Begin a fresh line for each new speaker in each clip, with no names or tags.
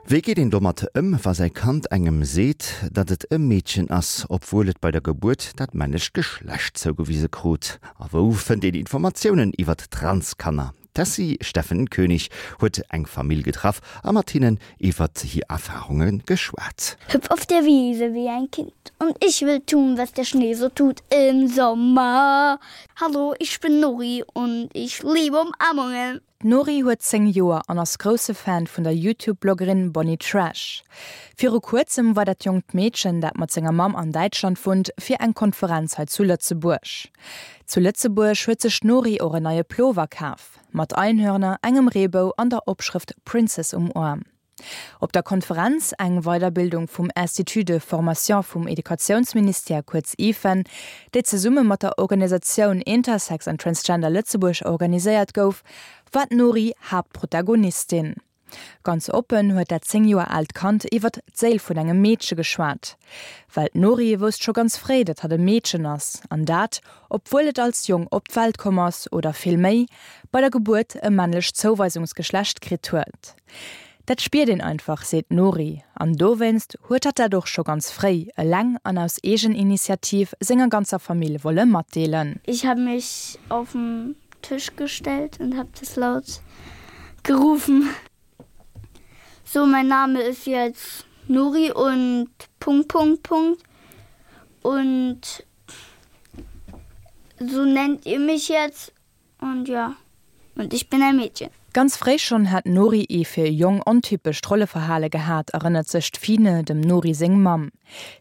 Wéi geet een domat ëm, wa säi Kand engem seet, datt et e Meedchen ass, obwuel et bei der Gebuert dat männlecht Geschlecht zougewise krut? A wou fënnt een Informatiounen iwwert Transkanner? D'Tessy Steffen Koenig huet eng Famill getraff a mat hinnen iwwert hir Erfarunge geschwat.
Hüpf auf der Wiese wie ein Kind und ich will tun, was der Schnee so tut im Sommer. Hallo, ich bin Nori und ich liebe Umarmungen.
D'Nori huet 10 Joer an ass grousse Fan vun der Youtube-Bloggerin Bonnie Trash. Viru kuerzem war dat jonkt Meedchen, dat mat senger Mamm an Däitschland wunnt, fir eng Konferenz hei zu Lëtzebuerg. Zu Lëtzebuerg huet sech d'Nori och en neie Plover kaf, mat Einhörner, engem Reebou an der Opschrëft Princess um Aarm. Op der Konferenz, eng Weiderbildung vum Institut de formation vum Educatiounsministère, kuerz IFEN, déi zesumme mat der Organisatioun Intersex and Transgender Lëtzebuerg organiséiert gouf, war d'Nori Haaptprotagonistin. Ganz oppen huet dat 10 Joer aalt Kand iwwert d'Séil vun engem Meedche geschwat. Well d'Nori wousst scho ganz fréi, datt hatt e Meedchen ass, an dat, obwuel et als Jong op d'Welt komm ass, oder vill méi, bei der Gebuert e männlecht Zouweisungsgeschlecht kritt huet. Dat spiert een einfach, seet d'Nori. An dowéinst huet hatt dat och scho ganz fréi, eleng an aus Eegeninitiativ, senger ganzer Famill wolle matdeelen.
Ich habe mich auf den Tisch gestellt und habe das laut gerufen. So, mein Name ist jetzt Nori und Punkt, Punkt, Punkt. Und so nennt ihr mich jetzt und ja und ich bin ein Mädchen.
Ganz fréi schonn hat d'Nori ee fir e Jong ontypescht Rolleverhale gehat, erënnert sech d'Fine, dem Nori seng Mamm.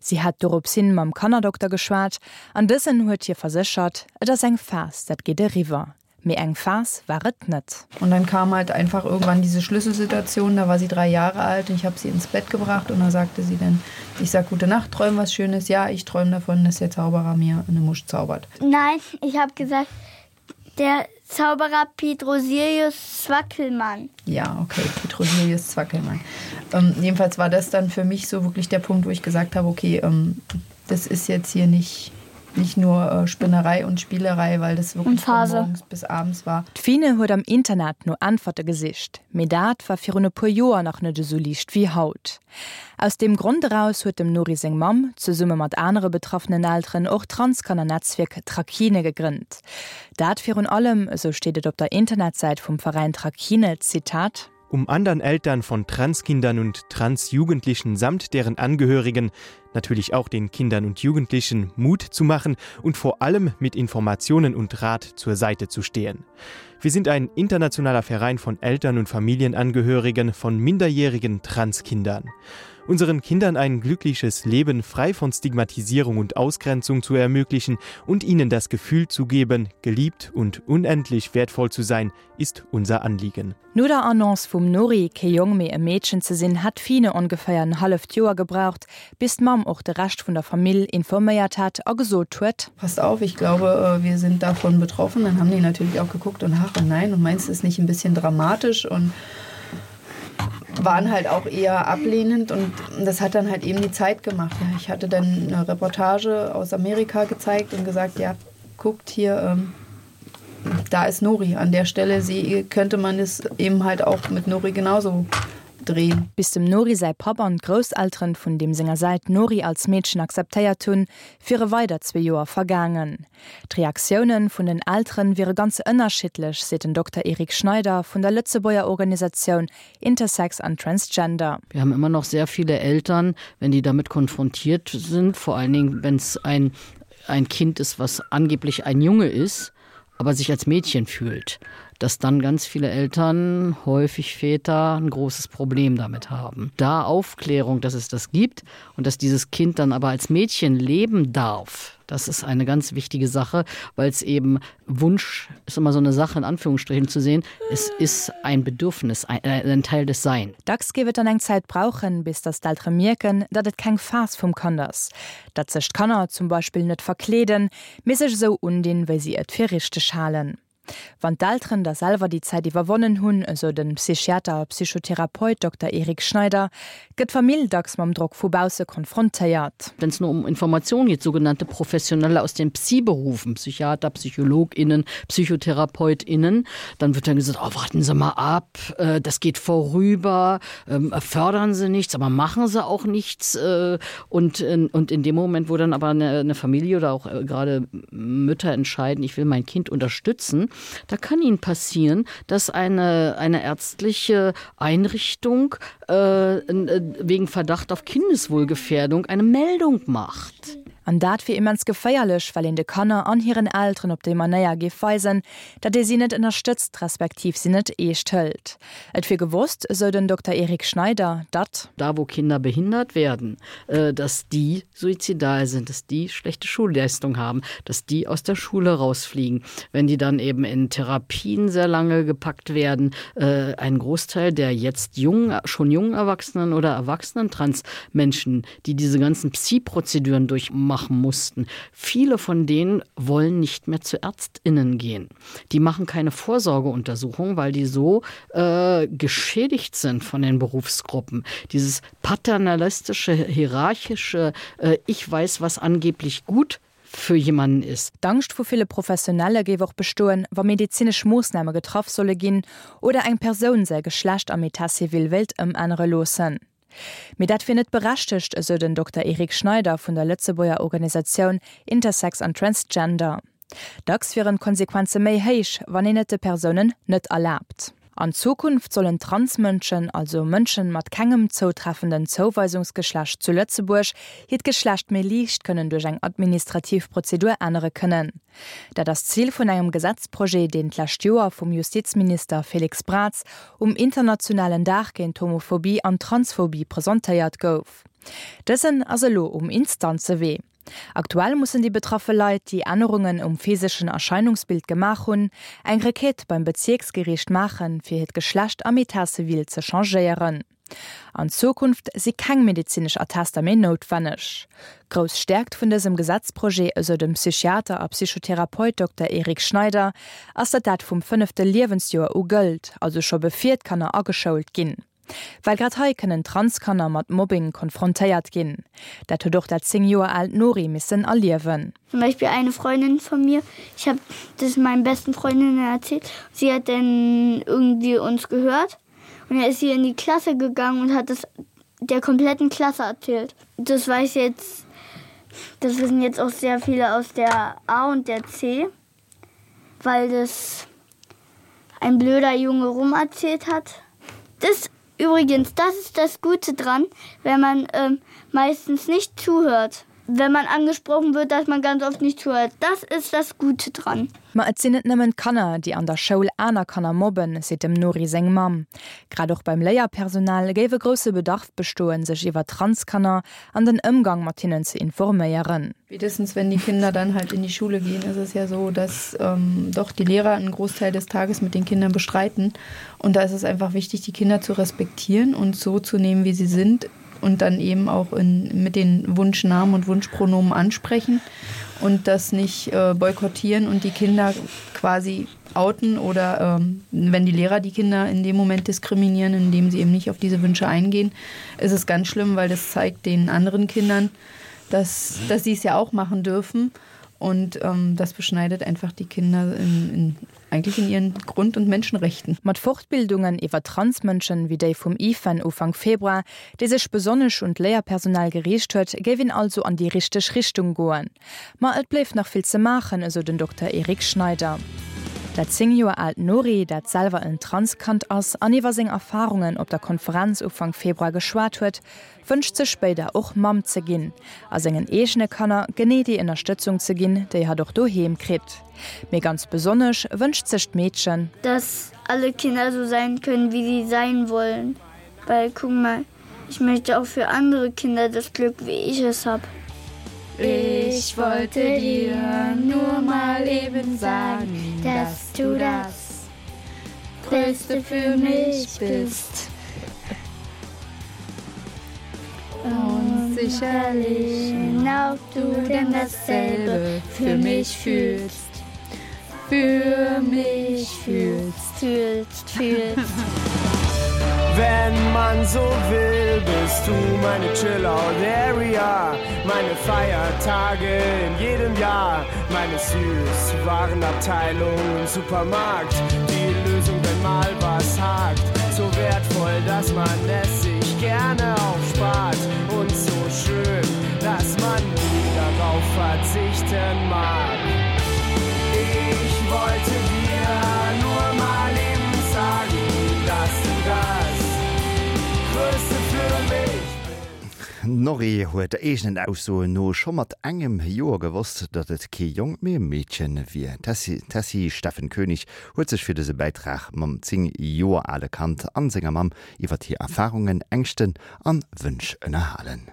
Si hat dorops hin mam Kannerdokter geschwat an dësen huet hir verséchert, Et ass eng Phas, dat geet eriwwer. Mee eng Phas war et net.
Und dann kam halt einfach irgendwann diese Schlüsselsituation, da war sie drei Jahre alt und ich habe sie ins Bett gebracht und da sagte sie dann, ich sag gute Nacht, träum was Schönes, ja, ich träum davon, dass der Zauberer mir eine Musch zaubert.
Nein, ich habe gesagt, der Zauberer Petrosilius Zwackelmann.
Ja, okay, Petrosilius Zwackelmann. Ähm, jedenfalls war das dann für mich so wirklich der Punkt, wo ich gesagt habe, okay, ähm, das ist jetzt hier nicht nicht nur äh, Spinnerei und Spielerei, weil das wirklich von morgens bis abends war.
D'Fine huet am Internet no Äntwerte gesicht, mee dat war virun e puer Joer nach net esou liicht wéi haut. Aus deem Grond eraus huet dem Nori seng Mamm, zesumme mat anere betraffenen Elteren, och d'Transkanner-Netzwierk Trakine gegrënnt. Dat virun allem, esou steet et op der Internetsäit vum Veräin Trakine, Zitat,
Um anderen Eltern von Transkindern und Transjugendlichen samt deren Angehörigen, natürlich auch den Kindern und Jugendlichen Mut zu machen und vor allem mit Informationen und Rat zur Seite zu stehen. Wir sind ein internationaler Verein von Eltern und Familienangehörigen von minderjährigen Transkindern. Unseren Kindern ein glückliches Leben frei von Stigmatisierung und Ausgrenzung zu ermöglichen und ihnen das Gefühl zu geben, geliebt und unendlich wertvoll zu sein, ist unser Anliegen.
No der Annonce vum Nori, kee Jong mee e Meedchen ze sinn, hat d'Fine ongeféier en halleft Joer gebraucht, bis d'Mamm och de Rescht vun der Famill informéiert hat a gesot huet.
Passt auf, ich glaube, wir sind davon betroffen. Dann haben die natürlich auch geguckt und ach und nein und meinst du es nicht ein bisschen dramatisch und waren halt auch eher ablehnend und das hat dann halt eben die Zeit gemacht. Ja, ich hatte dann eine Reportage aus Amerika gezeigt und gesagt, ja, guckt hier, ähm, da ist Nori an der Stelle sie könnte man es eben halt auch mit Nori genauso drehen.
Bis dem Nori säi Papp an d'Grousselteren vun deem senger Säit d'Nori als Meedchen akzeptéiert hunn, wiere weider zwee Joer vergaangen. D'Reaktiounen vun den Elteren wiere ganz ënnerschiddlech, seet den Dokter Eric Schneider vun der Lëtzebuerger Organisatioun Intersex an Transgender.
Wir haben immer noch sehr viele Eltern, wenn die damit konfrontiert sind, vor allen Dingen wenn es ein ein Kind ist, was angeblich ein Junge ist, aber sich als Mädchen fühlt, dass dann ganz viele Eltern, häufig Väter, ein großes Problem damit haben. Da Aufklärung, dass es das gibt und dass dieses Kind dann aber als Mädchen leben darf, das ist eine ganz wichtige Sache, weil es eben Wunsch ist immer so eine Sache in Anführungsstrichen zu sehen. Es ist ein Bedürfnis, ein, äh, ein Teil des Sein.
Dacks géif et dann eng Zäit brauchen, bis datt d'Eltere mierken, datt et keng Phas vum Kand ass. Datt sech d'Kanner zum Beispill net verkleeden, mee sech esou undinn, wéi si et fir richteg halen. Wann d'Elteren da selwer déi Zäit iwwerwonnen hunn, esou de Psychiater a Psychotherapeut Dokter Eric Schneider, gëtt d'Famill dacks mam Drock vu bausse konfrontéiert.
Wenn es nur um Informationen geht, sogenannte Professionelle aus den Psi-Berufen, Psychiater, PsychologInnen, PsychotherapeutInnen, dann wird dann gesagt, oh, warten Sie mal ab, äh, das geht vorüber, ähm, fördern Sie nichts, aber machen Sie auch nichts. Äh, und, in, und in dem Moment, wo dann aber eine, eine Familie oder auch äh, gerade Mütter entscheiden, ich will mein Kind unterstützen, da kann ihnen passieren, dass eine, eine ärztliche Einrichtung äh, äh wegen Verdacht auf Kindeswohlgefährdung eine Meldung macht.
An dat wier immens geféierlech, well een de Kanner an hiren Elteren op déi Manéier géif weisen, datt ee si net ënnerstëtzt, respektiv si net eescht hëlt. Et wier gewosst, esou den Dokter Eric Schneider, datt.
Da wo Kinder behindert werden, dass die suizidal sind, dass die schlechte Schulleistung haben, dass die aus der Schule rausfliegen, wenn die dann eben in Therapien sehr lange gepackt werden. Äh, ein Großteil der jetzt jungen, schon jungen Erwachsenen oder erwachsenen Transmenschen, die diese ganzen Psi-Prozeduren durchmachen mussten, viele von denen wollen nicht mehr zu Ärztinnen gehen. Die machen keine Vorsorgeuntersuchung, weil die so äh, geschädigt sind von den Berufsgruppen. Dieses paternalistische, hierarchische äh, Ich weiß, was angeblich gut für jemanden ist.
D'Angscht vu ville Professionelle géif och bestoen, wa medezinesch Moossname getraff solle ginn oder eng Persoun säi Geschlecht am Etat civil wéilt ëmännere loossen. Mee dat wier net berechtegt, esou den Dokter Eric Schneider vun der Lëtzebuerger Organisatioun Intersex an Transgender. Dacks wieren d'Konsequenze méi héich, wann een et de Persounen net erlaabt. An Zukunft sollen Transmënschen, also Mënschen mat kengem zoutreffenden Zouweisungsgeschlecht zu Lëtzebuerg, hiert Geschlecht méi liicht kënnen duerch eng administrativ Prozedur ännere kënnen. Dat ass d'Zil vun engem Gesetzprojet, deen d'lescht Joer vum Justizminister Félix Braz um internationalen Dag géint d'Homophobie an d'Transphobie presentéiert gouf. Dësen ass elo um Instanzewee. Aktuell mussen déi betraffe Leit, déi Ännerungen um physeschen Erscheinungsbild gemaach hunn, eng Requête beim Bezierksgeriicht maachen, fir hiert Geschlecht am Etat civil ze changéieren. An Zukunft si keng medezinesch Attester méi noutwenneg. Grouss Stäerkt vun dësem Gesetzprojet, esou dem Psychiater a Psychotherapeut Dokter Eric Schneider, ass, datt dat vum fënnefte Liewensjoer u gëllt, also scho bevir d'Kanner ageschoult ginn. Well grad hei kënnen Transkanner mat Mobbing konfrontéiert ginn. Dat huet och dat 10 Joer aalt Nori missen erliewen.
Zum Beispiel eine Freundin von mir, ich habe das meinen besten Freundinnen erzählt, sie hat dann irgendwie uns gehört und dann ist sie in die Klasse gegangen und hat das der kompletten Klasse erzählt. Das weiß jetzt das wissen jetzt auch sehr viele aus der A und der C, weil das ein blöder Junge rum erzählt hat. Das übrigens, das ist das Gute dran, wenn man ähm, meistens nicht zuhört. Wenn man angesprochen wird, dass man ganz oft nicht zuhört. Das ist das Gute dran.
Ma et sinn net nëmmen d'Kanner, déi an der Schoul aner Kanner mobben, seet dem Nori seng Mamm. Grad och beim Léierpersonal géif e grousse Bedarf bestoen, sech iwwer Transkanner an den Ëmgang mat hinnen ze informéieren.
Spätestens wenn die Kinder dann halt in die Schule gehen, ist es ja so, dass ähm, doch die Lehrer einen Großteil des Tages mit den Kindern bestreiten. Und da ist es einfach wichtig, die Kinder zu respektieren und so zu nehmen, wie sie sind und dann eben auch in, mit den Wunschnamen und Wunschpronomen ansprechen und das nicht äh, boykottieren und die Kinder quasi outen oder ähm, wenn die Lehrer die Kinder in dem Moment diskriminieren, indem sie eben nicht auf diese Wünsche eingehen, ist es ganz schlimm, weil das zeigt den anderen Kindern, dass, dass sie es ja auch machen dürfen. Und ähm, das beschneidet einfach die Kinder in, in, eigentlich in ihren Grund- und Menschenrechten.
Mat Fortbildungen iwwer Transmënschen, wéi déi vum IFEN Ufank Februar, déi sech besonnesch un d'Léierpersonal geriicht huet, géif een also an déi richteg Richtung goen. Ma et bléift nach vill ze maachen, esou den Dokter Eric Schneider. Dat 10 Joer aalt Nori, dat selwer en Transkand ass an iwwer seng Erfarungen op der Konferenz Ufank Februar geschwat huet, wënscht sech spéider och Mamm ze ginn a sengen eegene Kanner genee déi Ënnerstëtzung ze ginn, déi hatt och doheem kritt. Mee ganz besonnesch wënscht sech d'Meedchen.
Dass alle Kinder so sein können, wie sie sein wollen, weil guck mal, ich möchte auch für andere Kinder das Glück, wie ich es hab.
Ich wollte dir nur mal eben sagen, dass du das Größte für mich bist. Und sicherlich auch du denn dasselbe für mich fühlst.
Für mich fühlst,
fühlst, fühlst.
Wenn man so will, bist du meine Chillout Area, meine Feiertage in jedem Jahr, meine Süßwarenabteilung im Supermarkt, die Lösung, wenn mal was hakt, so wertvoll, dass man es sich gerne aufspart und so schön, dass man nie darauf verzichten mag. Ich wollte dir nur mal eben sagen, dass du das Größte für mich
D'Norri huet eegenen Aussoen no scho mat engem Joer gewosst, datt et kee Jong, mee e Meedchen wier. D'Tessy Steffen Koenig huet sech fir dëse Bäitrag mam 10 Joer ale Kand an senger Mamm iwwert hir Erfarungen, Ängschten an Wënsch ënnerhalen.